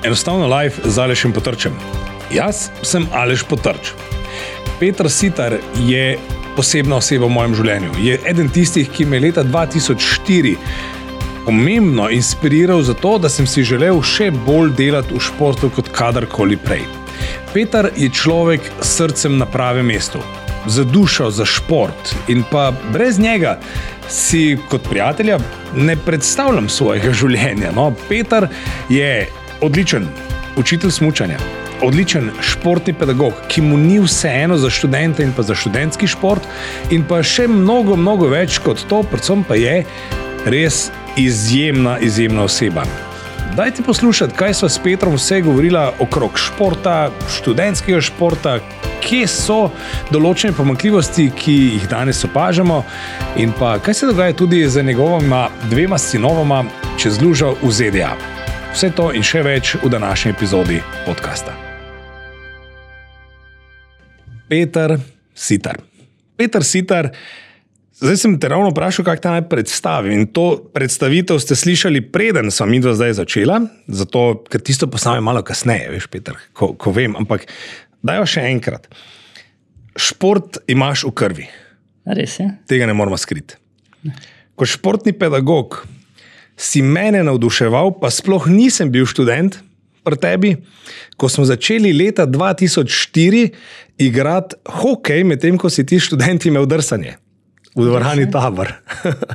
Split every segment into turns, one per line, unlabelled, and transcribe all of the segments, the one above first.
Enostavno live z Alešem Potrčem. Jaz sem Aleš Potrč. Peter Sitar je posebna oseba v mojem življenju. Je eden tistih, ki me leta 2004 pomembno inspiriral za to, da sem si želel še bolj delati v športu kot kadarkoli prej. Peter je človek s srcem na pravem mestu, za dušo, za šport in pa brez njega si kot prijatelja ne predstavljam svojega življenja. No, Peter je odličen učitelj smučanja, odličen športni pedagog, ki mu ni vseeno za študente in pa za študentski šport in pa še mnogo, mnogo več kot to, predvsem pa je res izjemna oseba. Dajte poslušati, kaj sva s Petrom vse govorila okrog športa, študentskega športa, kje so določene pomanjkljivosti, ki jih danes opažamo in pa kaj se dogaja tudi z njegovima 2 sinovoma čez lužo v ZDA. Vse to in še več v današnji epizodi podcasta. Peter Sitar. Peter Sitar, zdaj sem te ravno vprašal, kako te naj predstavim. In to predstavitev ste slišali preden sva midva zdaj začela, zato, ker tisto postavim malo kasneje, veš, Peter, ko vem, ampak dajo še enkrat. Šport imaš v krvi.
Res je.
Tega ne moramo skriti. Ko športni pedagog si mene navduševal, pa sploh nisem bil študent pri tebi, ko smo začeli leta 2004 igrati hokej, medtem ko si ti študenti imel drsanje v dvorani Tabor.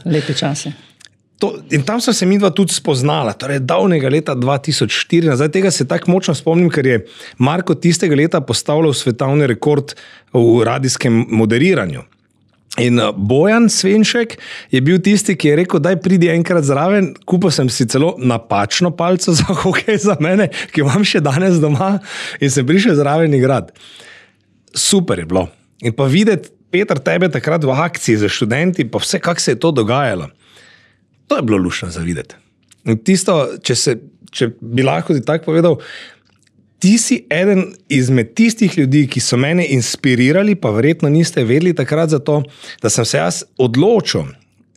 Lepi časi.
In tam so se midva tudi spoznala, torej davnega leta 2004. Zdaj tega se tako močno spomnim, ker je Marko tistega leta postavljal svetovni rekord v radijskem moderiranju. In Bojan Svenšek je bil tisti, ki je rekel, daj pridi enkrat zraven, kupil sem si celo napačno palco za hokej za mene, ki imam še danes doma in sem prišel zraven igrati. Super je bilo. In pa videti, Peter, tebe takrat v akciji za študenti, pa vse, kako se je to dogajalo. To je bilo luštno za videti. In tisto, če bi lahko ti tako povedal, ti si eden izmed tistih ljudi, ki so mene inspirirali, pa verjetno niste vedeli takrat za to, da sem se jaz odločil,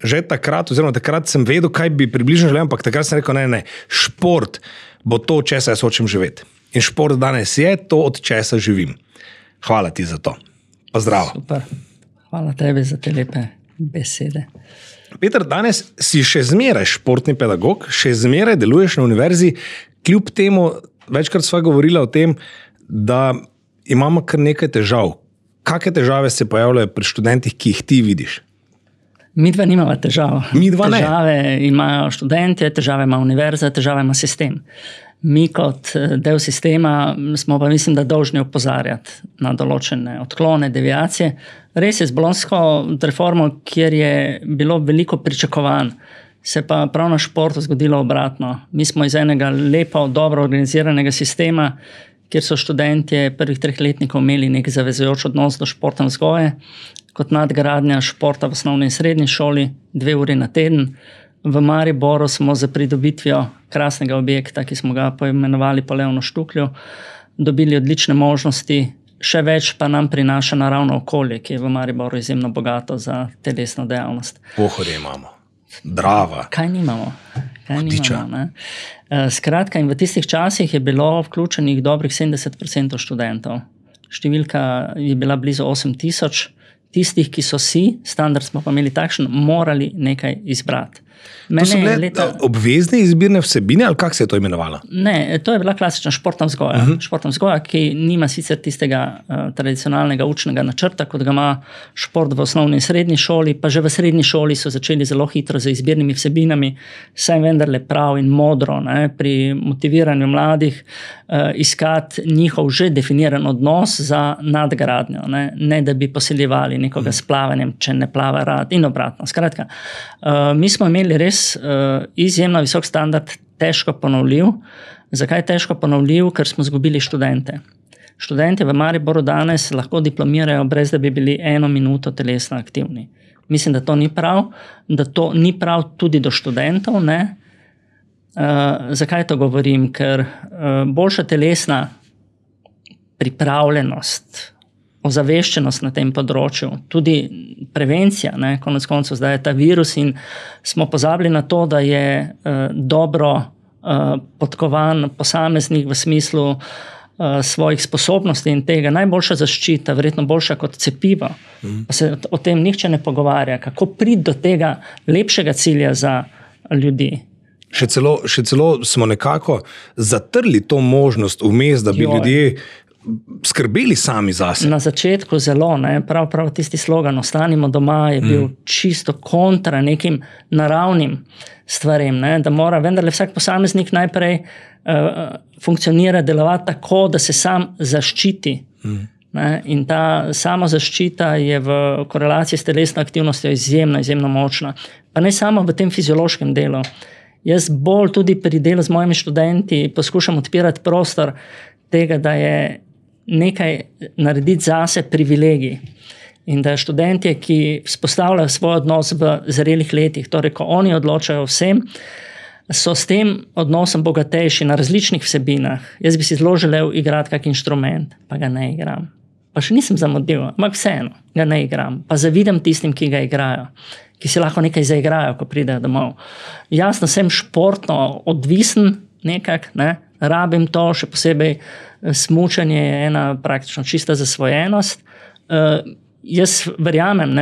že takrat, oziroma takrat sem vedel, kaj bi približno želel, ampak takrat sem rekel, ne, šport bo to, od česa jaz hočem živeti. In šport danes je to, od česa živim. Hvala ti za to. Pa zdravo.
Super. Hvala tebi za te lepe besede.
Peter, danes si še zmeraj športni pedagog, še zmeraj deluješ na univerzi, kljub temu, večkrat sva govorila o tem, da imamo kar nekaj težav. Kakšne težave se pojavljajo pri študentih, ki jih ti vidiš?
Midva nimava težav.
Midva ne.
Težave imajo študentje, težave ima univerza, težave ima sistem. Mi kot del sistema smo pa, mislim, da dolžni opozarjati na določene odklone, deviacije. Res je z bolonjsko reformo, kjer je bilo veliko pričakovanj, se pa prav na športu zgodilo obratno. Mi smo iz enega lepo, dobro organiziranega sistema, kjer so študentje prvih 3 letnikov imeli nek zavezujoč odnos do športne vzgoje, kot nadgradnja športa v osnovni in srednji šoli, 2 uri na teden. V Mariboru smo za pridobitvijo krasnega objekta, ki smo ga poimenovali po Leonu Štuklju, dobili odlične možnosti, še več pa nam prinaša naravno okolje, ki je v Mariboru izjemno bogato za telesno dejavnost.
Pohorje imamo. Drava.
Kaj nimamo? Skratka, in v tistih časih je bilo vključenih dobrih 70% študentov. Številka je bila blizu 8000. Tistih, ki so standard smo pa imeli takšen, morali nekaj izbrati.
To so bile obvezne izbirne vsebine, ali kako se je to imenovalo?
Ne, to je bila klasična športna vzgoja. Športna vzgoja, ki nima sicer tistega tradicionalnega učnega načrta, kot ga ima šport v osnovni in srednji šoli, pa že v srednji šoli so začeli zelo hitro z izbirnimi vsebinami, saj vendarle prav in modro, pri motiviranju mladih iskati njihov že definiran odnos za nadgradnjo, ne da bi posiljevali nekoga s plavanjem, če ne plava rad in obratno. Skratka, mi smo imeli res izjemno visok standard, težko ponovljiv. Zakaj težko ponovljiv? Ker smo izgubili študente. Študenti v Mariboru danes lahko diplomirajo, brez da bi bili 1 minuto telesno aktivni. Mislim, da to ni prav, da to ni prav tudi do študentov. Zakaj to govorim? Ker boljša telesna pripravljenost, ozaveščenost na tem področju, tudi prevencija, konec koncev zdaj je ta virus in smo pozabili na to, da je dobro podkovan posameznik v smislu svojih sposobnosti in tega. Najboljša zaščita, verjetno boljša kot cepivo. Pa se o tem nihče ne pogovarja, kako priti do tega lepšega cilja za ljudi.
Še celo smo nekako zatrli to možnost vmes, da bi ljudje skrbeli sami zase.
Na začetku zelo, prav tisti slogan Ostanimo doma je bil čisto kontra nekim naravnim stvarem, da mora vendarle vsak posameznik najprej funkcionira, delovati tako, da se sam zaščiti. In ta samozaščita je v korelaciji s telesno aktivnostjo izjemno močna. Pa ne samo v tem fiziološkem delu. Jaz bolj tudi pri delu z mojimi študenti poskušam odpirati prostor tega, da je nekaj narediti zase privilegij. In da študentje, ki vzpostavljajo svoj odnos v zrelih letih, torej ko oni odločajo vsem, so s tem odnosom bogatejši na različnih vsebinah. Jaz bi si zelo želel igrati kak inštrument, pa ga ne igram. Pa še nisem zamudil, ampak vseeno ga ne igram. Pa zavidam tistim, ki ga igrajo, ki si lahko nekaj zaigrajo, ko pridejo domov. Jasno, sem športno odvisen nekak, rabim to, še posebej smučanje je ena praktično čista zasvojenost. Jaz verjamem,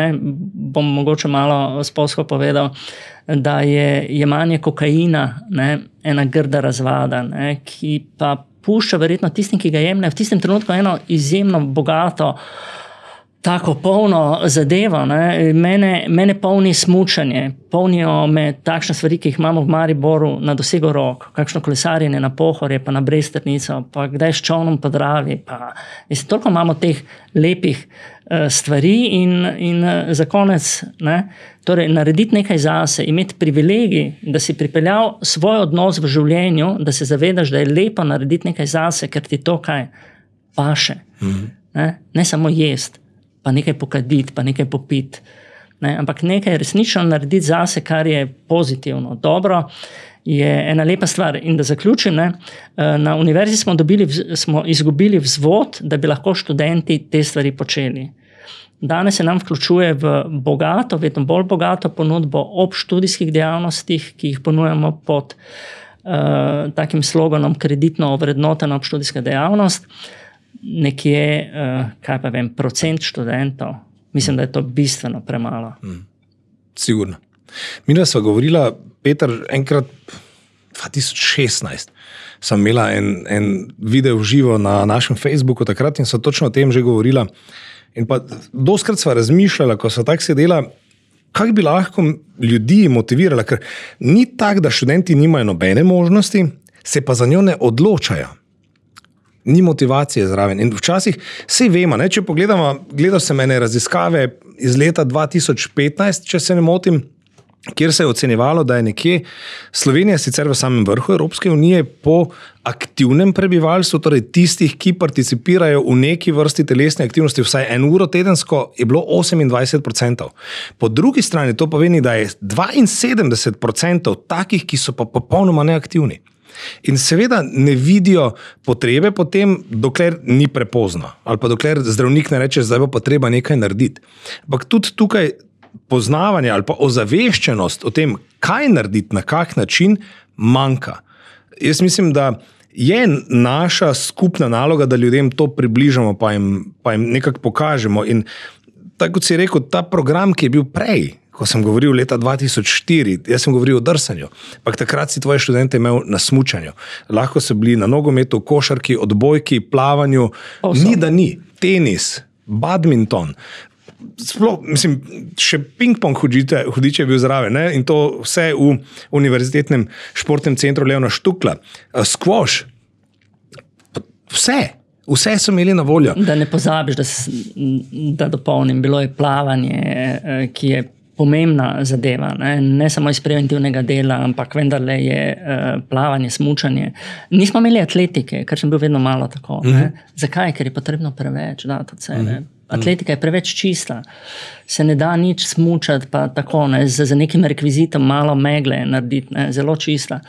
bom mogoče malo spolsko povedal, da je jemanje kokaina ena grda razvada, ki pa pušča verjetno tistim, ki ga jemljajo v tistem trenutku eno izjemno bogato, tako polno zadevo. Mene polni smučanje, polnijo me takšne stvari, ki jih imamo v Mariboru na dosegu rok, kakšno kolesarjenje na Pohorje, pa na Bresternico, pa kdaj s čolnom po Dravi. Toliko imamo teh lepih stvari in za konec, torej narediti nekaj zase, imeti privilegij, da si pripeljal svoj odnos v življenju, da se zavedaš, da je lepo narediti nekaj zase, ker ti to kaj paše. Ne samo jest, pa nekaj pokaditi, pa nekaj popiti. Ampak nekaj resnično narediti zase, kar je pozitivno, dobro, je ena lepa stvar. In da zaključim, na univerzi smo izgubili vzvod, da bi lahko študenti te stvari počeli. Danes se nam vključuje v bogato, vedno bolj bogato ponudbo ob študijskih dejavnostih, ki jih ponujamo pod takim sloganom kreditno ovrednotena obštudijska dejavnost. Nekje, procent študentov. Mislim, da je to bistveno premalo.
Sigurno. Midva sva govorila, Peter, enkrat 2016 sem imela en video v živo na našem Facebooku takrat in sva točno o tem že govorila. In pa doskrat sva razmišljala, ko sva tako sedela, kako bi lahko ljudi motivirala, ker ni tako, da študenti nimajo nobene možnosti, se pa za njo ne odločajo. Ni motivacije zraven. In včasih vse vemo, če pogledamo, gledal sem ene raziskave iz leta 2015, če se ne motim, kjer se je ocenjevalo, da je nekje Slovenija sicer v samem vrhu Evropske unije po aktivnem prebivalstvu, torej tistih, ki participirajo v neki vrsti telesne aktivnosti vsaj 1 uro tedensko, je bilo 28%. Po drugi strani to pomeni, da je 72% takih, ki so pa popolnoma neaktivni. In seveda ne vidijo potrebe potem, dokler ni prepozno. Ali pa dokler zdravnik ne reče, zdaj bo pa treba nekaj narediti. Ampak tudi tukaj poznavanje ali pa ozaveščenost o tem, kaj narediti, na kak način, manjka. Jaz mislim, da je naša skupna naloga, da ljudem to približamo, pa jim nekako pokažemo. In tako kot si rekel, ta program, ki je bil prej, ko sem govoril leta 2004, jaz sem govoril o drsanju, pa takrat si tvoje študente imel na smučanju. Lahko so bili na nogometu, košarki, odbojki, plavanju, ni da ni, tenis, badminton, sploh, mislim, še ping-pong hudiče je bil zraven, in to vse v univerzitetnem športnem centru Leona Štukla, squash, vse so imeli na voljo.
Da ne pozabiš, da dopolnim, bilo je plavanje, ki je pomembna zadeva, ne samo iz preventivnega dela, ampak vendarle je plavanje, smučanje. Nismo imeli atletike, ker sem bil vedno malo tako. Zakaj? Ker je potrebno preveč dati od sebe. Atletika je preveč čista. Se ne da nič smučati, pa tako, za nekim rekvizitom malo megle narediti, zelo čista.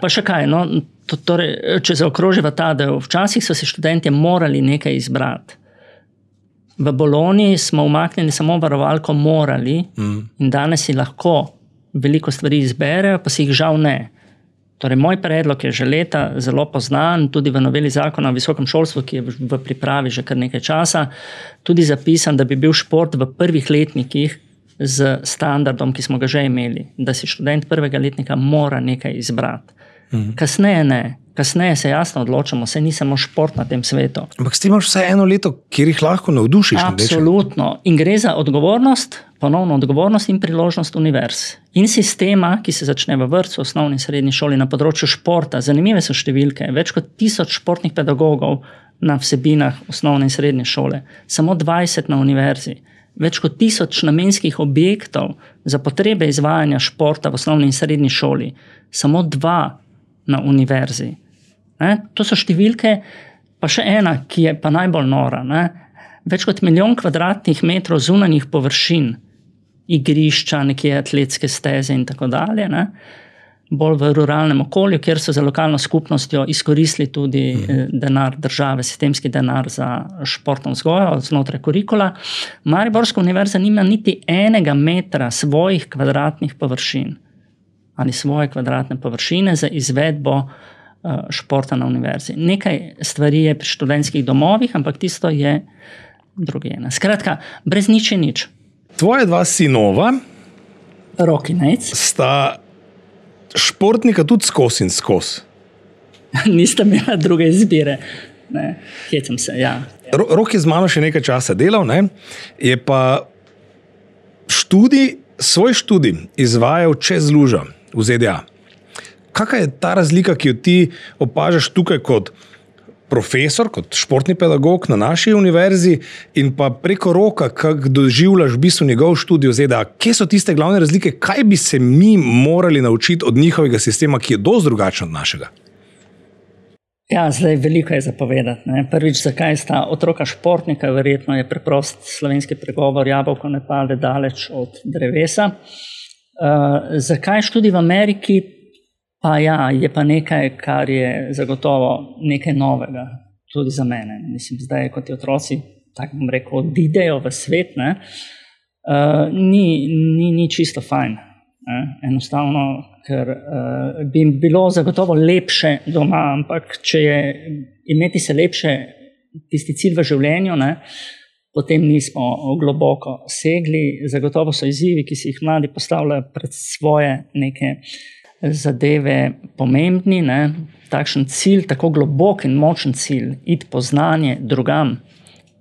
Pa še kaj, torej, če zaokroživa ta del, včasih so se študentje morali nekaj izbrati. V Bologni smo umaknili samo varovalko morali in danes si lahko veliko stvari izberejo, pa si jih žal ne. Torej, moj predlog je že leta zelo poznan, tudi v noveli zakona o visokem šolstvu, ki je v pripravi že kar nekaj časa, tudi zapisan, da bi bil šport v prvih letnikih z standardom, ki smo ga že imeli, da si študent prvega letnika mora nekaj izbrati. Kasneje ne. Kasneje se jasno odločamo, saj ni samo šport na tem svetu.
Ampak ti imaš vsaj eno leto, kjer jih lahko navdušiš.
Absolutno. In gre za odgovornost, ponovno odgovornost in priložnost univerz. In sistema, ki se začne v vrtcu, osnovni in srednji šoli na področju športa. Zanimive so številke. Več kot 1000 športnih pedagogov na vsebinah osnovne in srednje šole. Samo 20 na univerzi. Več kot 1000 namenskih objektov za potrebe izvajanja športa v osnovni in srednji šoli. Samo 2 na univerzi. To so številke, pa še ena, ki je pa najbolj nora. Več kot 1 milijon kvadratnih metrov zunanjih površin, igrišča, nekje atletske steze in tako dalje, bolj v ruralnem okolju, kjer so za lokalno skupnostjo izkoristili tudi denar države, sistemski denar za športno vzgojo znotraj kurikula. Mariborska univerza nima niti 1 metra svojih kvadratnih površin ali svoje kvadratne površine za izvedbo športa na univerzi. Nekaj stvari je pri študentskih domovih, ampak tisto je drugje. Skratka, brez nič je nič.
Tvoje 2 sinova
Rok in Nejc
sta športnika tudi skozi in skozi.
Nista imela druge izbire. Hecam se, ja.
Rok je z mano še nekaj časa delal, je pa svoj študij izvajal čez lužo v ZDA. Kakva je ta razlika, ki jo ti opažaš tukaj kot profesor, kot športni pedagog na naši univerzi in pa preko Roka, kako doživljaš v bistvu njegov študij v ZDA? Kje so tiste glavne razlike? Kaj bi se mi morali naučiti od njihovega sistema, ki je dosti drugačen od našega?
Ja, zdaj veliko je zapovedati. Prvič, zakaj sta otroka športnika, verjetno je preprost slovenski pregovor, jabolko ne pade daleč od drevesa. Zakaj študij v Ameriki? Pa ja, je pa nekaj, kar je zagotovo nekaj novega, tudi za mene. Mislim, zdaj, kot ti otroci, tako bom rekel, odidejo v svet, ni čisto fajn. Enostavno, ker bi jim bilo zagotovo lepše doma, ampak če je imeti se lepše tisti cilj v življenju, potem nismo globoko segli. Zagotovo so izzivi, ki si jih mladi postavljajo pred svoje neke zadeve pomembni. Takšen cilj, tako globok in močen cilj, iti po znanje drugam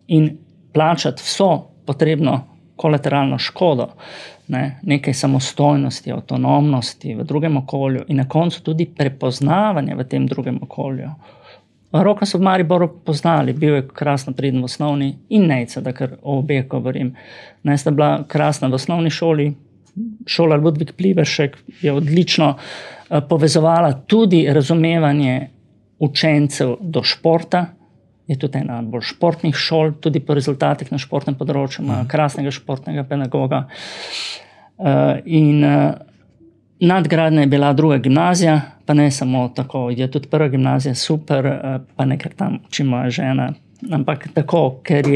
in plačati vso potrebno kolateralno škodo, nekaj samostojnosti, avtonomnosti v drugem okolju in na koncu tudi prepoznavanje v tem drugem okolju. Roka so v Mariboru poznali, bil je krasno priden v osnovni in Nejca, da kar o obeh govorim. Sta bila krasna v osnovni šoli, šola Ludvik Pliberšek je odlično povezovala tudi razumevanje učencev do športa, je tudi ena bolj športnih šol, tudi po rezultatih na športnem področju, ima krasnega športnega pedagoga. In nadgradnja je bila druga gimnazija, pa ne samo tako, je tudi prva gimnazija super, pa ne ker tam uči moja žena, ampak tako, ker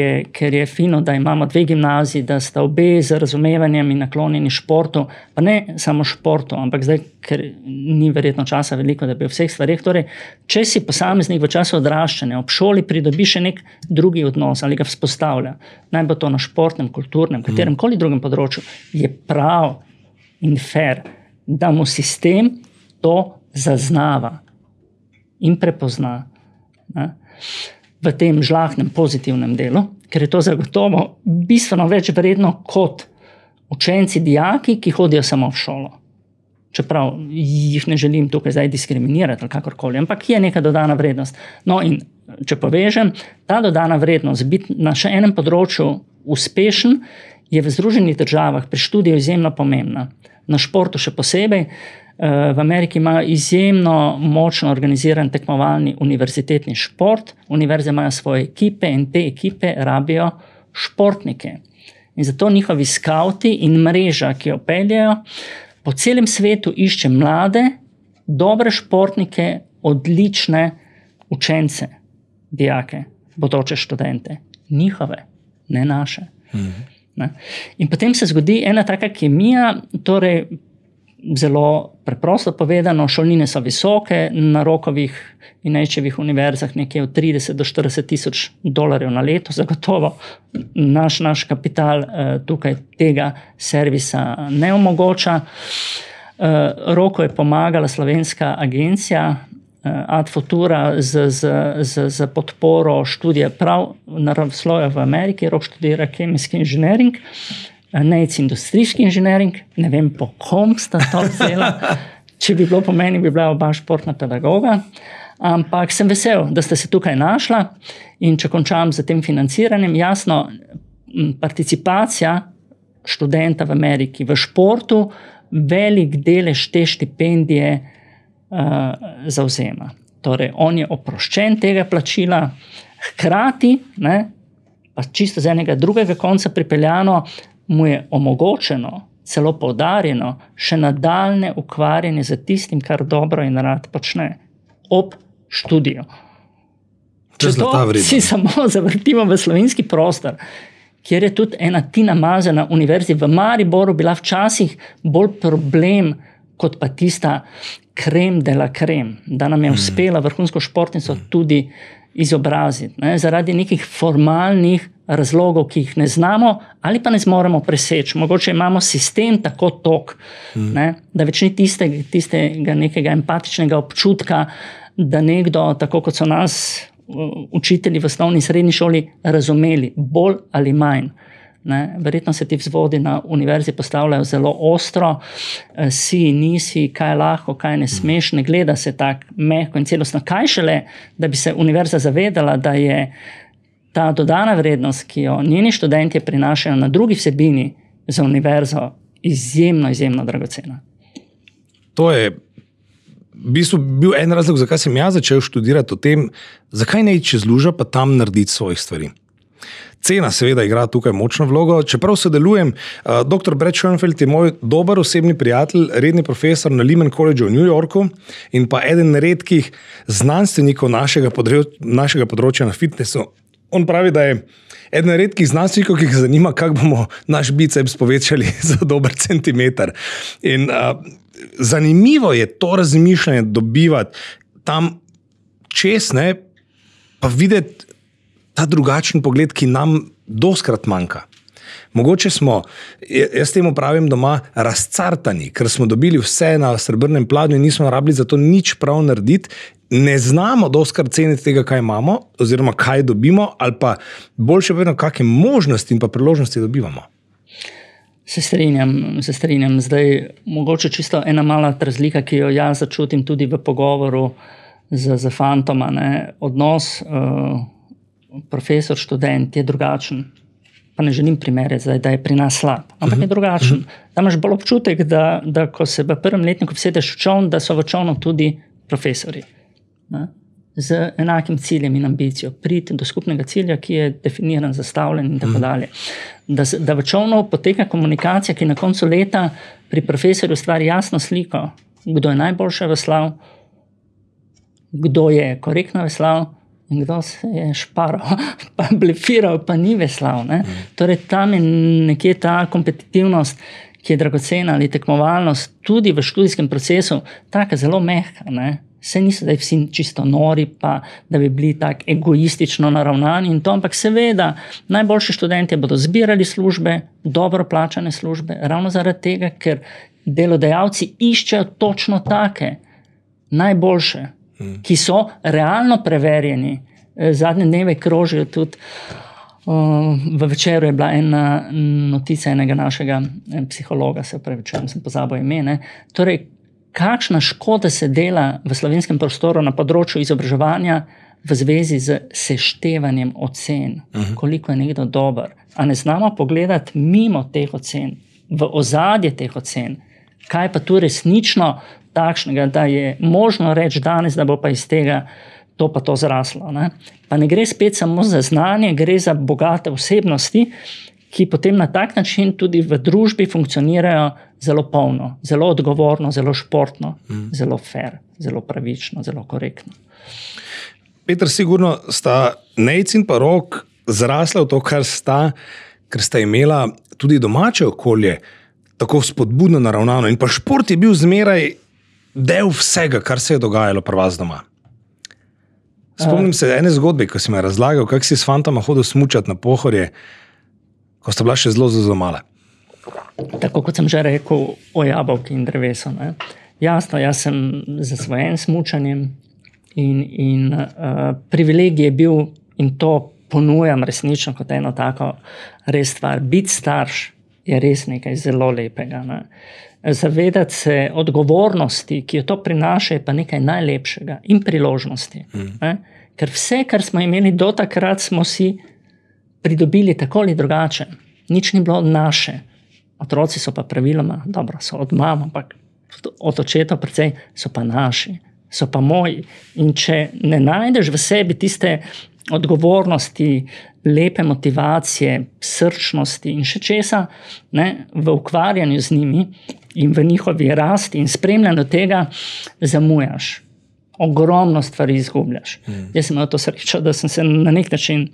je fino, da imamo 2 gimnaziji, da sta obe z razumevanjem in naklonjeni športu, pa ne samo športu, ampak zdaj, ker ni verjetno časa veliko, da bi o vseh stvarih. Torej, če si posameznik v času odraščanja ob šoli pridobi še nek drugi odnos ali ga vzpostavlja, naj bo to na športnem, kulturnem, kateremkoli drugem področju, je prav in fair, da mu sistem to zaznava in prepozna. V tem žlahnem pozitivnem delu, ker je to zagotovo bistveno več vredno kot učenci, dijaki, ki hodijo samo v šolo. Čeprav jih ne želim tukaj zdaj diskriminirati ali kakorkoli, ampak je neka dodana vrednost. No in če povežem, ta dodana vrednost, biti na še enem področju uspešen, je v Združenih državah pri študiju izjemno pomembna. Na športu še posebej. V Ameriki imajo izjemno močno organiziran tekmovalni univerzitetni šport. Univerze imajo svoje ekipe in te ekipe rabijo športnike. In zato njihovi skauti in mreža, ki jo peljejo, po celem svetu išče mlade, dobre športnike, odlične učence, dijake, bodoče študente. Njihove, ne naše. In potem se zgodi ena taka kemija, torej zelo preprosto povedano, šolnine so visoke, na Rockovih in Nejčevih univerzah nekje od 30 do 40 tisoč dolarjev na leto, zagotovo naš kapital tukaj tega servisa ne omogoča. Roko je pomagala slovenska agencija Ad Futura z podporo študija prav naravoslovja v Ameriki. Rok študira kemijski inženiring, Nejc industrijski inženiring, ne vem po kom sta to vzela, če bi bilo po meni, bi bila oba športna pedagoga, ampak sem vesel, da ste se tukaj našla in če končam z tem financiranjem, jasno, participacija študenta v Ameriki v športu velik delež te štipendije zavzema. Torej, on je oproščen tega plačila, hkrati, ne, pa čisto z enega drugega konca pripeljano, mu je omogočeno, celo poudarjeno, še nadaljne ukvarjanje z tistim, kar dobro in rad počne ob študiju. Če to si samo zavrtimo v slovenski prostor, kjer je tudi ena Tina Maze na univerzi v Mariboru bila včasih bolj problem, kot pa tista krem de la krem, da nam je uspela vrhunsko športnico tudi izobraziti. Ne? Zaradi nekih formalnih razlogov, ki jih ne znamo ali pa ne zmoremo preseči. Mogoče imamo sistem tako tok, da več ni tistega nekega empatičnega občutka, da nekdo, tako kot so nas učitelji v osnovni in srednji šoli razumeli, bolj ali manj. Ne? Verjetno se ti vzvodi na univerzi postavljajo zelo ostro, si, nisi, kaj lahko, kaj ne smeš, ne gleda se tak mehko in celostno. Kaj šele, da bi se univerza zavedala, da je ta dodana vrednost, ki jo njeni študentje prinašajo na drugi vsebini za univerzo, izjemno, izjemno dragocena.
To je v bistvu bil en razlog, zakaj sem jaz začel študirati o tem, zakaj ne iti čez lužo, pa tam narediti svojih stvari. Cena seveda igra tukaj močno vlogo, čeprav sodelujem. Dr. Brad Schoenfeld je moj dober osebni prijatelj, redni profesor na Lehman College v New Yorku in pa eden redkih znanstvenikov našega področja na fitnessu. On pravi, da je eden redkih znanstvenikov, ki jih zanima, kako bomo naš biceps povečali za dober centimeter. In zanimivo je to razmišljanje dobivati tam čez, ne, pa videti ta drugačen pogled, ki nam doskrat manjka. Mogoče smo, jaz temu pravim doma, razcartani, ker smo dobili vse na srebrnem pladnju in nismo rabili za to nič prav narediti, ne znamo doskrat ceniti tega, kaj imamo, oziroma kaj dobimo, ali pa boljše povedano, kakšne možnosti in pa priložnosti dobivamo.
Se strinjam. Zdaj, mogoče čisto ena mala razlika, ki jo jaz začutim tudi v pogovoru z fantoma, ne? Odnos profesor, študent je drugačen. Pa ne želim primerjati zdaj, da je pri nas slab, ampak je drugačen. Tam imaš bolj občutek, da ko se v prvem letniku vsedeš v čoln, da so v čolnu tudi profesori. Ne? Z enakim ciljem in ambicijo. Priti do skupnega cilja, ki je definiran, zastavljen in tako dalje. Da v čolnu poteka komunikacija, ki na koncu leta pri profesorju stvari jasno sliko, kdo je najboljše veslal, kdo je korektno veslal, in kdo se je šparal, pa blefiral, pa ni veslal. Ne? Torej, tam je nekje ta kompetitivnost, ki je dragocena, ali tekmovalnost, tudi v študijskem procesu, taka zelo mehka. Ne? Se niso zdaj vsi čisto nori, pa da bi bili tako egoistično naravnani in to, ampak seveda, najboljši študentje bodo zbirali službe, dobro plačane službe, ravno zaradi tega, ker delodajalci iščejo točno take, najboljše, ki so realno preverjeni. Zadnje dneve krožijo tudi, v Večeru je bila ena notica enega našega psihologa, se upravičujem, sem pozabil ime, ne. Torej, kakšna škoda se dela v slovenskem prostoru na področju izobraževanja v zvezi z seštevanjem ocen, koliko je nekdo dober. A ne znamo pogledati mimo teh ocen, v ozadje teh ocen, kaj pa tu resnično takšnega, da je možno reči danes, da bo pa iz tega to pa to zraslo. Ne? Pa ne gre spet samo za znanje, gre za bogate osebnosti, ki potem na tak način tudi v družbi funkcionirajo zelo polno, zelo odgovorno, zelo športno, zelo fair, zelo pravično, zelo korektno.
Peter, sigurno sta Nejc in pa Rok zrasla v to, kar sta imela tudi domače okolje, tako spodbudno naravnano. In pa šport je bil zmeraj del vsega, kar se je dogajalo pri vas doma. Spomnim se ene zgodbe, ko si me razlagal, kako si s fantoma hodil smučati na Pohorje, ko sta bila še zelo mala.
Tako kot sem že rekel o jabolki in drevesu. Ne? Jasno, jaz sem zasvojen smučanjem in privilegij je bil, in to ponujam resnično kot eno tako res stvar. Biti starš je res nekaj zelo lepega. Ne? Zavedati se odgovornosti, ki jo to prinaša, je pa nekaj najlepšega in priložnosti. Ker vse, kar smo imeli do takrat, smo si pridobili tako ali drugače. Nič ni bilo naše. Otroci so pa praviloma, dobro, so od mama, ampak od očetov precej so pa naši, so pa moji. In če ne najdeš v sebi tiste odgovornosti, lepe motivacije, srčnosti in še česa, ne, v ukvarjanju z njimi in v njihovi rasti in spremljanju tega zamujaš. Ogromno stvari izgubljaš. Jaz sem imel to srečo, da sem se na nek način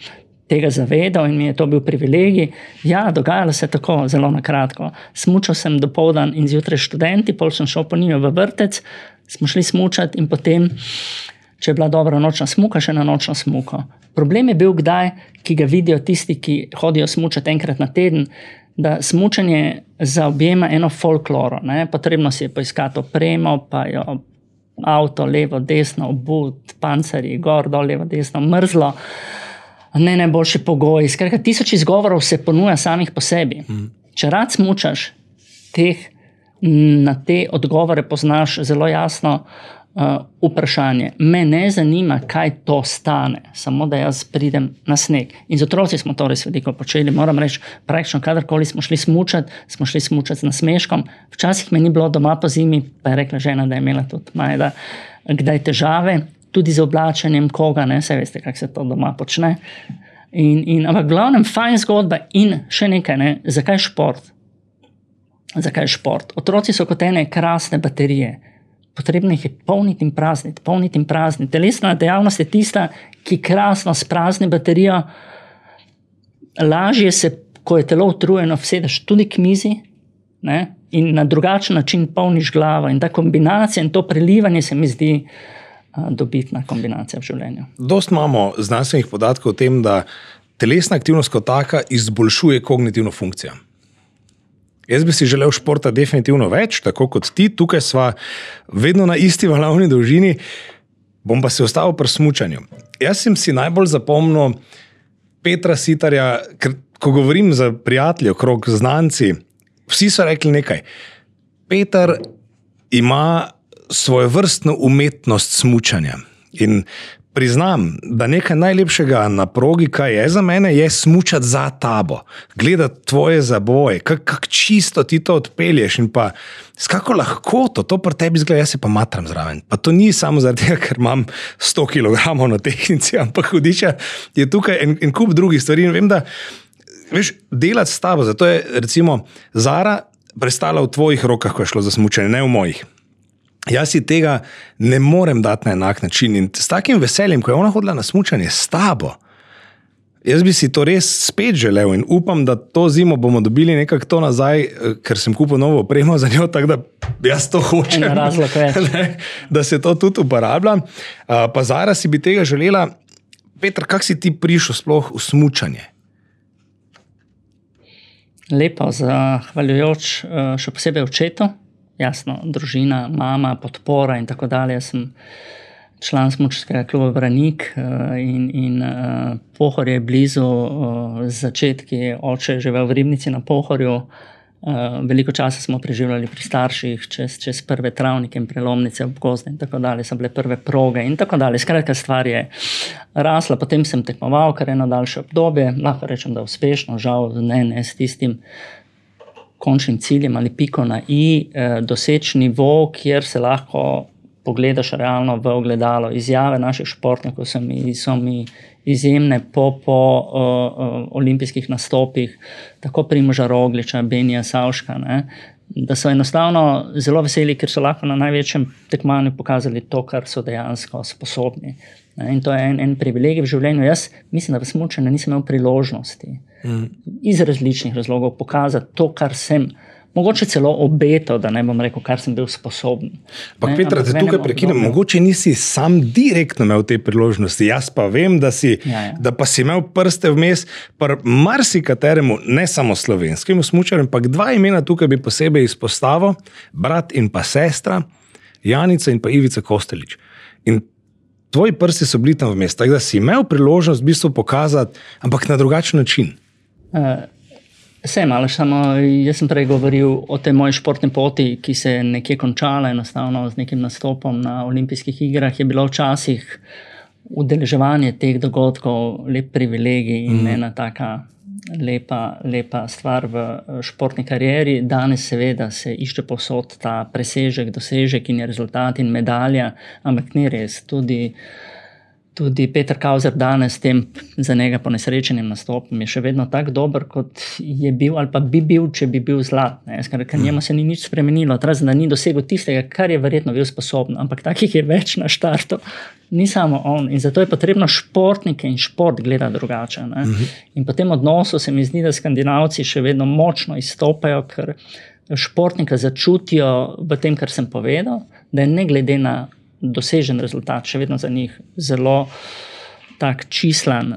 tega zavedal in mi je to bil privilegij. Ja, dogajalo se tako, zelo na kratko. Smučal sem dopoldan in zjutraj študenti, pol sem šel po njiju v vrtec, smo šli smučati in potem, če je bila dobra nočna smuka, še na nočno smuko. Problem je bil kdaj, ki ga vidijo tisti, ki hodijo smučati enkrat na teden, da smučanje zaobjema eno folkloro. Ne? Potrebno si je poiskati opremo, pa jo avto, levo, desno, obut, pancerji, gor, dol, levo, desno, mrzlo, ne najboljši pogoji. Skratka, 1000 izgovorov se ponuja samih po sebi. Če rad smučaš, na te odgovore poznaš zelo jasno vprašanje. Me ne zanima, kaj to stane, samo da jaz pridem na sneg. In z otroci smo to res veliko počeli. Moram reči, praktično kadarkoli smo šli smučati z nasmeškom. Včasih me ni bilo doma po zimi, pa je rekla žena, da je imela tudi Majda kdaj težave, tudi z oblačenjem koga, ne, saj veste, kako se to doma počne. Ampak glavnem fajn zgodba in še nekaj, ne, zakaj šport? Zakaj šport? Otroci so kot ene krasne baterije. Potrebno jih je polniti in prazniti. Telesna dejavnost je tista, ki krasno sprazni baterijo. Lažje se, ko je telo utrujeno, vsedeš tudi k mizi, ne, in na drugačen način polniš glavo. In ta kombinacija in to prelivanje se mi zdi dobitna kombinacija v življenju.
Dost imamo znanstvenih podatkov o tem, da telesna aktivnost kot taka izboljšuje kognitivno funkcijo. Jaz bi si želel športa definitivno več, tako kot ti. Tukaj sva vedno na isti valovni dolžini. Bom pa se ostal pri smučanju. Jaz sem si najbolj zapomnil Petra Sitarja, ker ko govorim za prijatelje okrog znanci, vsi so rekli nekaj. Peter ima svojevrstno umetnost smučanja. In priznam, da nekaj najlepšega na progi, kaj je za mene, je smučati za tabo. Gledati tvoje zaboje, kako čisto ti to odpelješ in pa s kako lahkoto to pri tebi izgleda, jaz se pa matram zraven. Pa to ni samo zaradi tega, ker imam 100 kg na tehnici, ampak hudiča je tukaj en kup drugih stvari in vem, da veš, delati s tabo, zato je recimo Zara prestala v tvojih rokah, ko je šlo za smučanje, ne v mojih. Jaz si tega ne morem dati na enak način in s takim veseljem, ko je ona hodila na smučanje s tabo, jaz bi si to res spet želel in upam, da to zimo bomo dobili nekako to nazaj, ker sem kupil novo opremo za njo, tako da jaz to hočem, da se to tudi uporablja. Pa Zara si bi tega želela. Peter, kako si ti prišel sploh v smučanje?
Lepo, zahvaljujoč še posebej očetu. Jasno, družina, mama, podpora in tako dalje. Jaz sem član smučarskega kluba Branik in Pohorje je blizu, začetki oče je živel v Ribnici na Pohorju. Veliko časa smo preživljali pri starših, čez prve travnike in prelomnice ob gozde in tako dalje, so bile prve proge in tako dalje. Skratka, stvar je rasla, potem sem tekmoval kar eno daljše obdobje, lahko rečem, da uspešno, žal ne s tistim končnim ciljem ali piko na i, doseči nivo, kjer se lahko pogledaš realno v ogledalo. Izjave naših športnikov so mi izjemne po olimpijskih nastopih, tako Primoža Rogliča, Benija Savška, ne, da so enostavno zelo veseli, ker so lahko na največjem tekmovanju pokazali to, kar so dejansko sposobni. In to je en privilegij v življenju. Jaz mislim, da v smučanju nisem imel priložnosti iz različnih razlogov pokazati to, kar sem mogoče celo obetal, da ne bom rekel, kar sem bil sposoben.
Ampak Petra, te tukaj prekinem, mogoče nisi sam direktno imel te priložnosti, jaz pa vem, da pa si imel prste vmes, pa marsikateremu, ne samo slovenskemu smučarju, ampak 2 imena tukaj bi posebej izpostavil, brat in pa sestra, Janica in pa Ivica Kostelić. In tvoji prsti so bili tam vmes, tako da si imel priložnost v bistvu pokazati, ampak na drugačen način.
Sem, ali samo jaz sem prej govoril o tej moji športni poti, ki se je nekje končala enostavno z nekim nastopom na olimpijskih igrah, je bilo včasih udeleževanje teh dogodkov lep privilegij in ena taka lepa stvar v športni karieri. Danes seveda se išče povsod ta presežek, dosežek in je rezultat in medalja, ampak ni res. Tudi Peter Kauzer danes s tem za njega ponesrečenim nastopom je še vedno tak dober, kot je bil ali pa bi bil, če bi bil zlat. Ker njemu se ni nič spremenilo, razen da ni dosegel tistega, kar je verjetno bil sposoben, ampak takih je več na štartu. Ni samo on in zato je potrebno športnike in šport gledati drugače. In po tem odnosu se mi zdi, da Skandinavci še vedno močno izstopajo, ker športnika začutijo v tem, kar sem povedal, da je ne glede na dosežen rezultat, še vedno za njih zelo tak čislan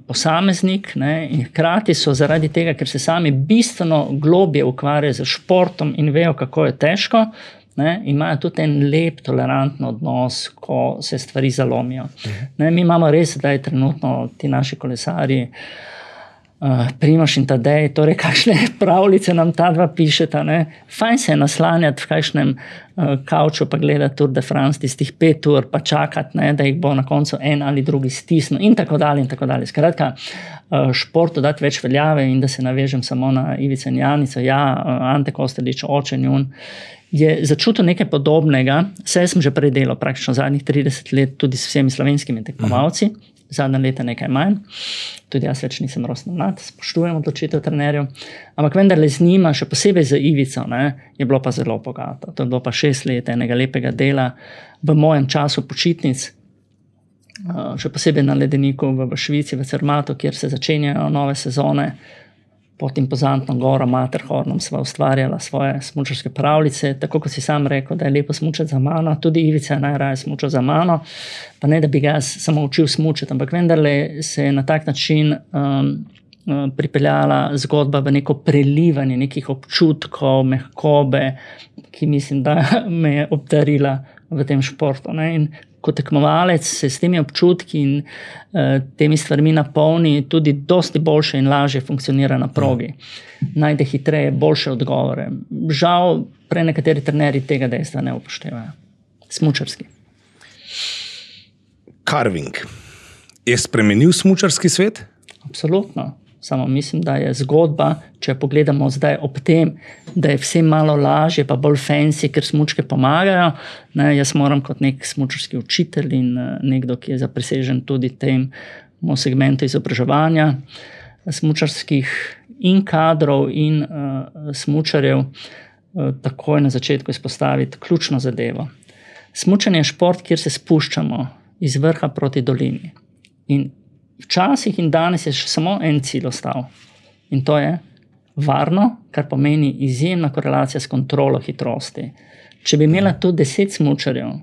posameznik, in hkrati so zaradi tega, ker se sami bistveno globje ukvarjajo z športom in vejo, kako je težko, imajo tudi en lep, toleranten odnos, ko se stvari zalomijo. Mi imamo res zdaj trenutno ti naši kolesarji, Primož in Tadej, torej kakšne pravljice nam ta dva pišeta. Fajn se je naslanjati v kakšnem kavču pa gledati Tour de France, tistih 5 ur, pa čakati, da jih bo na koncu en ali drugi stisnil in tako dalje in tako dalje. Skratka, športu dati več veljave in da se navežem samo na Ivico in Janico. Ante Kostelić, oče njun, je začutil nekaj podobnega. Saj sem že prej delal praktično zadnjih 30 let tudi s vsemi slovenskimi tekmovalci. Zadnja leta nekaj manj, tudi jaz več nisem rosno mlad, spoštujem odločitev trenerjev, ampak vendarle z njima, še posebej z Ivico, je bilo pa zelo bogato. To je bilo pa 6 let enega lepega dela v mojem času počitnic, še posebej na ledeniku v Švici, v Zermatu, kjer se začenjajo nove sezone. Pod impozantno goro Matterhornom sva ustvarjala svoje smučarske pravljice, tako kot si sam rekel, da je lepo smučati za mano, tudi Ivica je najraje smučal za mano, pa ne, da bi ga samo učil smučati, ampak vendarle se je na tak način pripeljala zgodba v neko prelivanje nekih občutkov, mehkobe, ki mislim, da me je obdarila v tem športu. In kot tekmovalec se s temi občutki in temi stvarmi napolni, tudi dosti boljše in lažje funkcionira na progi. Najde hitreje, boljše odgovore. Žal, nekateri trenerji tega dejstva ne upoštevajo. Smučarski.
Carving. Je spremenil smučarski svet?
Absolutno. Samo mislim, da je zgodba, če pogledamo zdaj ob tem, da je vse malo lažje, pa bolj fancy, ker smučke pomagajo. Jaz moram kot nek smučarski učitelj in nekdo, ki je zaprisežen tudi temu segmentu izobraževanja smučarskih in kadrov in smučarjev, takoj na začetku izpostaviti ključno zadevo. Smučanje je šport, kjer se spuščamo iz vrha proti dolini. In včasih in danes je še samo en cilj ostal. In to je varno, kar pomeni izjemna korelacija s kontrolo hitrosti. Če bi imela tu 10 smučarjev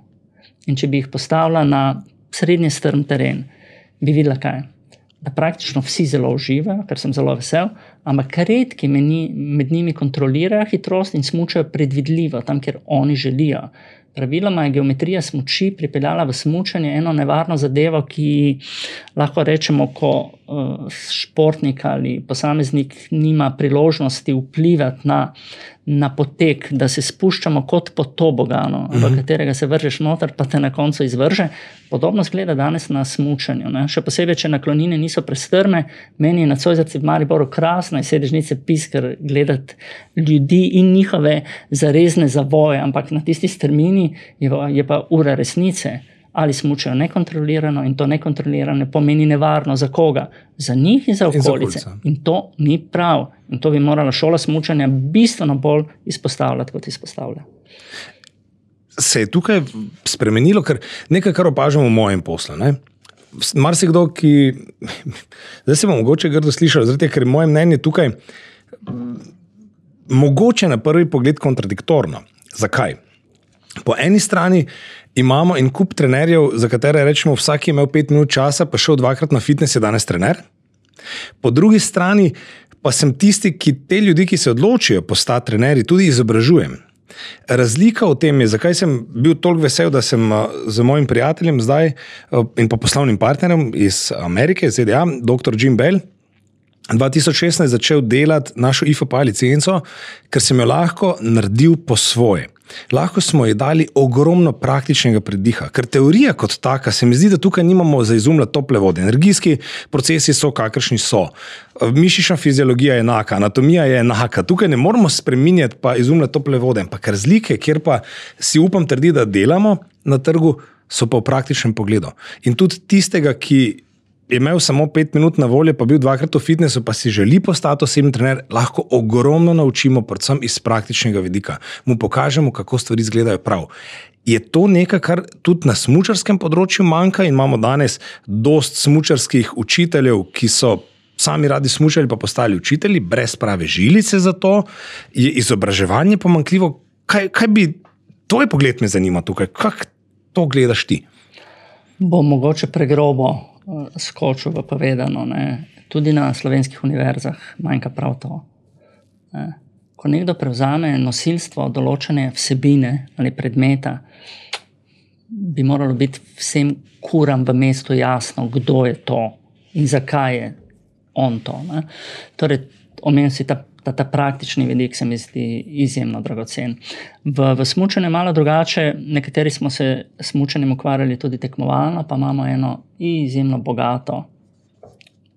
in če bi jih postavila na srednje strm teren, bi videla kaj? Da praktično vsi zelo uživajo, ker sem zelo vesel, ampak redki med njimi kontrolirajo hitrost in smučajo predvidljivo, tam, kjer oni želijo. Praviloma je geometrija smuči pripeljala v smučanje eno nevarno zadevo, ki lahko rečemo, ko športnik ali posameznik nima priložnosti vplivati na potek, da se spuščamo kot po toboganu, v katerega se vržeš noter, pa te na koncu izvrže. Podobno zgleda danes na smučanju. Še posebej, če naklonine niso prestrme, meni je na Zoisovci v Mariboru krasno iz sedežnice piskar gledati ljudi in njihove zarezne zavoje, ampak na tisti strmini je pa ura resnice. Ali smučajo nekontrolirano in to nekontrolirano pomeni nevarno za koga? Za njih in za okolice. In to ni prav. In to bi morala šola smučanja bistveno bolj izpostavljati, kot izpostavlja.
Se je tukaj spremenilo, ker nekaj, kar opažamo v mojem poslu. Marsikdo, ki zdaj se bom mogoče grdo slišal, ker je moje mnenje tukaj mogoče na prvi pogled kontradiktorno. Zakaj? Po eni strani imamo en kup trenerjev, za katere rečemo, vsak je imel 5 minut časa, pa šel 2-krat na fitness, je danes trener. Po drugi strani pa sem tisti, ki te ljudi, ki se odločijo postati trenerji, tudi izobražujem. Razlika v tem je, zakaj sem bil toliko vesel, da sem z mojim prijateljem zdaj in pa poslovnim partnerjem iz Amerike, iz ZDA, dr. Jim Bell, 2016 začel delati našo IFPA licenco, ker sem jo lahko naredil po svoje. Lahko smo ji dali ogromno praktičnega prediha, ker teorija kot taka se mi zdi, da tukaj nimamo za izumljati tople vode. Energijski procesi so, kakršni so. Mišična fiziologija je enaka, anatomija je enaka. Tukaj ne moramo spreminjati pa izumljati tople vode. Ampak razlike, kjer pa si upam trditi, da delamo na trgu, so pa v praktičnem pogledu. In tudi tistega, ki je imel samo 5 minut na voljo, pa bil 2-krat v fitnessu, pa si želi postati osebni trener, lahko ogromno naučimo, predvsem iz praktičnega vidika. Mu pokažemo, kako stvari izgledajo prav. Je to nekaj, kar tudi na smučarskem področju manjka in imamo danes dost smučarskih učiteljev, ki so sami radi smučali, pa postali učitelji, brez prave žilice za to? Je izobraževanje pomanjkljivo? Kaj bi, tvoj pogled me zanima tukaj, kako to gledaš ti?
Bo mogoče pregrobo skočil v povedano, ne. Tudi na slovenskih univerzah manjka prav to. Ne. Ko nekdo prevzame nosilstvo določene vsebine ali predmeta, bi moralo biti vsem kuram v mestu jasno, kdo je to in zakaj je on to. Ne. Torej, omenil si ta praktični vidik, se mi zdi izjemno dragocen. V smučanju je malo drugače, nekateri smo se smučanjem ukvarjali tudi tekmovalno, pa imamo eno izjemno bogato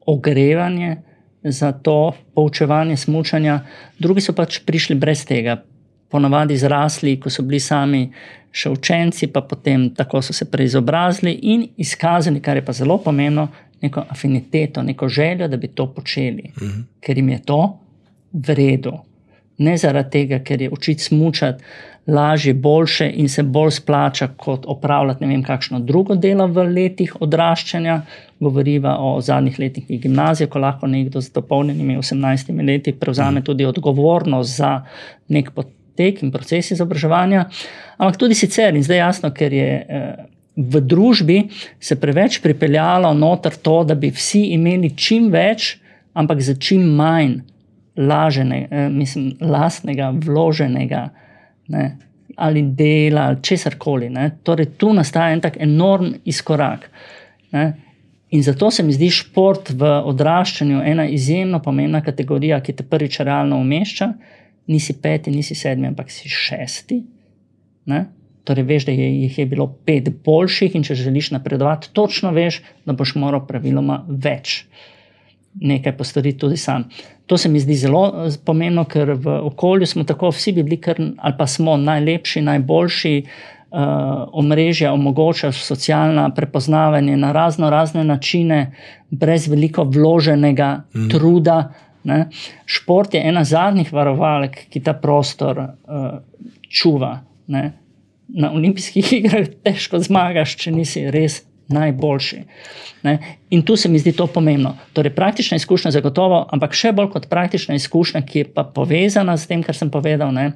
ogrevanje za to poučevanje smučanja. Drugi so pač prišli brez tega, ponavadi zrasli, ko so bili sami še učenci, pa potem tako so se preizobrazili in izkazali, kar je pa zelo pomembno, neko afiniteto, neko željo, da bi to počeli, ker jim je to v redu. Ne zaradi tega, ker je učiti smučati lažje, boljše in se bolj splača kot opravljati ne vem kakšno drugo delo v letih odraščanja. Govoriva o zadnjih letih gimnazije, ko lahko nekdo z dopolnjenimi 18 leti prevzame tudi odgovornost za nek potek in proces izobraževanja. Ampak tudi sicer, in zdaj jasno, ker je v družbi se preveč pripeljalo noter to, da bi vsi imeli čim več, ampak za čim manj lastnega, vloženega, ne, ali dela, ali česarkoli. Ne. Torej, tu nastaja en tak enorm izkorak. Ne. In zato se mi zdi šport v odraščanju ena izjemno pomembna kategorija, ki te prvič realno umešča. Nisi 5, nisi 7, ampak si 6. Ne. Torej, veš, da jih je bilo 5 boljših in če želiš napredovati, točno veš, da boš moral praviloma več nekaj postoriti tudi sam. To se mi zdi zelo pomembno, ker v okolju smo tako, vsi bi bili ali pa smo najlepši, najboljši, omrežja omogočajo socialna prepoznavanje na razne načine, brez veliko vloženega truda. Ne. Šport je ena zadnjih varovalk, ki ta prostor čuva. Ne. Na olimpijskih igrah težko zmagaš, če nisi res najboljši. Ne? In tu se mi zdi to pomembno. Torej, praktična izkušnja zagotovo, ampak še bolj kot praktična izkušnja, ki je pa povezana s tem, kar sem povedal, ne?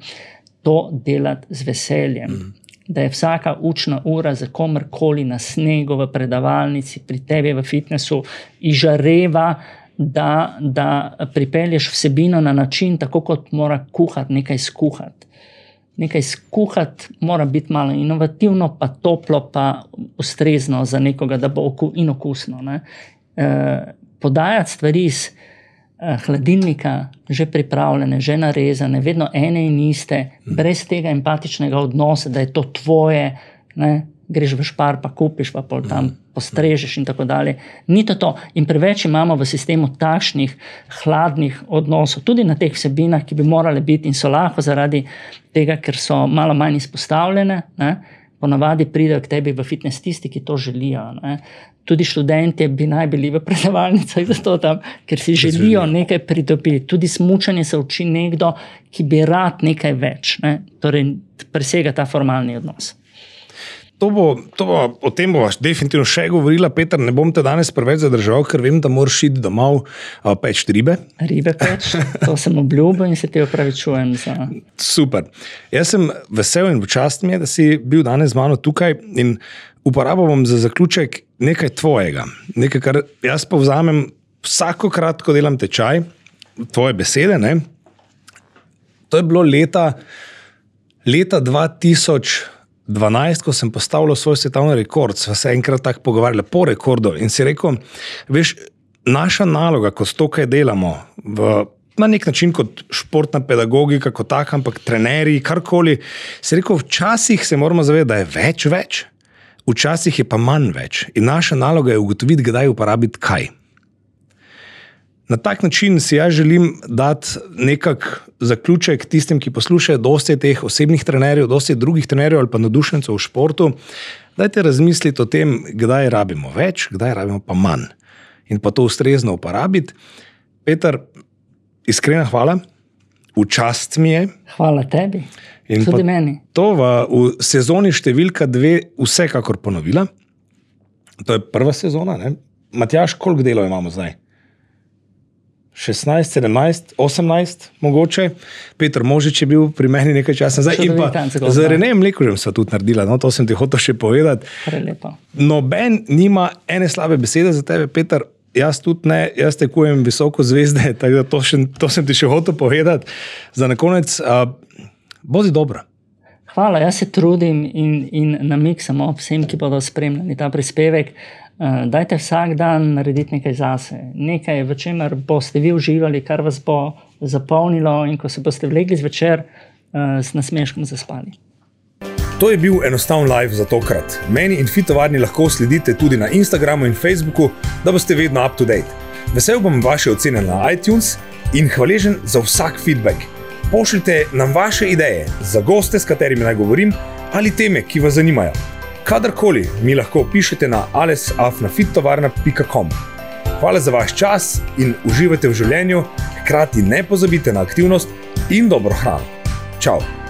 To delati z veseljem. Da je vsaka učna ura za komerkoli na snegu, v predavalnici, pri tebi v fitnessu, izžareva, da pripelješ vsebino na način, tako kot mora kuhati, nekaj skuhati. Nekaj skuhati mora biti malo inovativno, pa toplo, pa ustrezno za nekoga, da bo in okusno. Ne. Podajati stvari iz hladilnika, že pripravljene, že narezane, vedno ene in iste, brez tega empatičnega odnosa, da je to tvoje, ne. Greš v Špar, pa kupiš, pa pol tam postrežeš in tako dalje. Ni to. In preveč imamo v sistemu takšnih hladnih odnosov, tudi na teh vsebinah, ki bi morale biti in so lahko zaradi tega, ker so malo manj izpostavljene. Ne? Ponavadi pridejo k tebi v fitness tisti, ki to želijo. Ne? Tudi študentje bi naj bili v predavalnicah zato tam, ker si želijo nekaj pridobiti. Tudi smučanje se uči nekdo, ki bi rad nekaj več. Ne? Torej, presega ta formalni odnos.
O tem bova definitivno še govorila, Peter, ne bom te danes preveč zadržal, ker vem, da moraš iti domov peč ribe.
Ribe peč, to sem obljubil in se ti opravičujem za...
Super. Jaz sem vesel in počast mi je, da si bil danes z mano tukaj in uporabil bom za zaključek nekaj tvojega. Nekaj, kar jaz povzamem vsakokrat, ko delam tečaj, tvoje besede, ne? To je bilo leta 2012, ko sem postavil svoj svetovni rekord, sva se enkrat tako pogovarjali po rekordu in si rekel, veš, naša naloga, ko to kaj delamo, na nek način kot športna pedagogika, kot tak, ampak trenerji, karkoli, si rekel, včasih se moramo zavedati, da je več, včasih je pa manj več in naša naloga je ugotoviti, kdaj uporabiti kaj. Na tak način si jaz želim dati nekak zaključek tistim, ki poslušajo, dosti teh osebnih trenerjev, dosti drugih trenerjev ali pa navdušencev v športu. Dajte razmisliti o tem, kdaj rabimo več, kdaj rabimo pa manj. In pa to ustrezno uporabiti. Peter, iskrena hvala, v čast mi je.
Hvala tebi, in tudi meni.
To v sezoni številka 2 vsekakor ponovila. To je prva sezona, ne? Matjaž, koliko delov imamo zdaj? 16, 17, 18 mogoče. Peter Možič je bil pri meni nekaj časa nazaj. In pa z Renejem Mlekužem sva tudi naredila, no, to sem ti hotel še povedati.
Prelepo.
Noben nima ene slabe besede za tebe, Peter, jaz tudi ne, jaz tekujem visoko zvezde, tako da to sem ti še hotel povedati. Za na konec, bodi dobra.
Hvala, jaz se trudim in namiksam vsem, ki bodo spremljali ta prispevek. Dajte vsak dan narediti nekaj zase. Nekaj, v čemer boste vi uživali, kar vas bo zapolnilo in ko se boste vlegli zvečer, s nasmeškom zaspali.
To je bil enostaven live za tokrat. Meni in Fitovarni lahko sledite tudi na Instagramu in Facebooku, da boste vedno up to date. Vesel bom vaše ocene na iTunes in hvaležen za vsak feedback. Pošljite nam vaše ideje za goste, s katerimi naj govorim, ali teme, ki vas zanimajo. Kadarkoli mi lahko pišete na ales@fittovarna.com. Hvala za vaš čas in uživajte v življenju, hkrati ne pozabite na aktivnost in dobro hrano. Čau!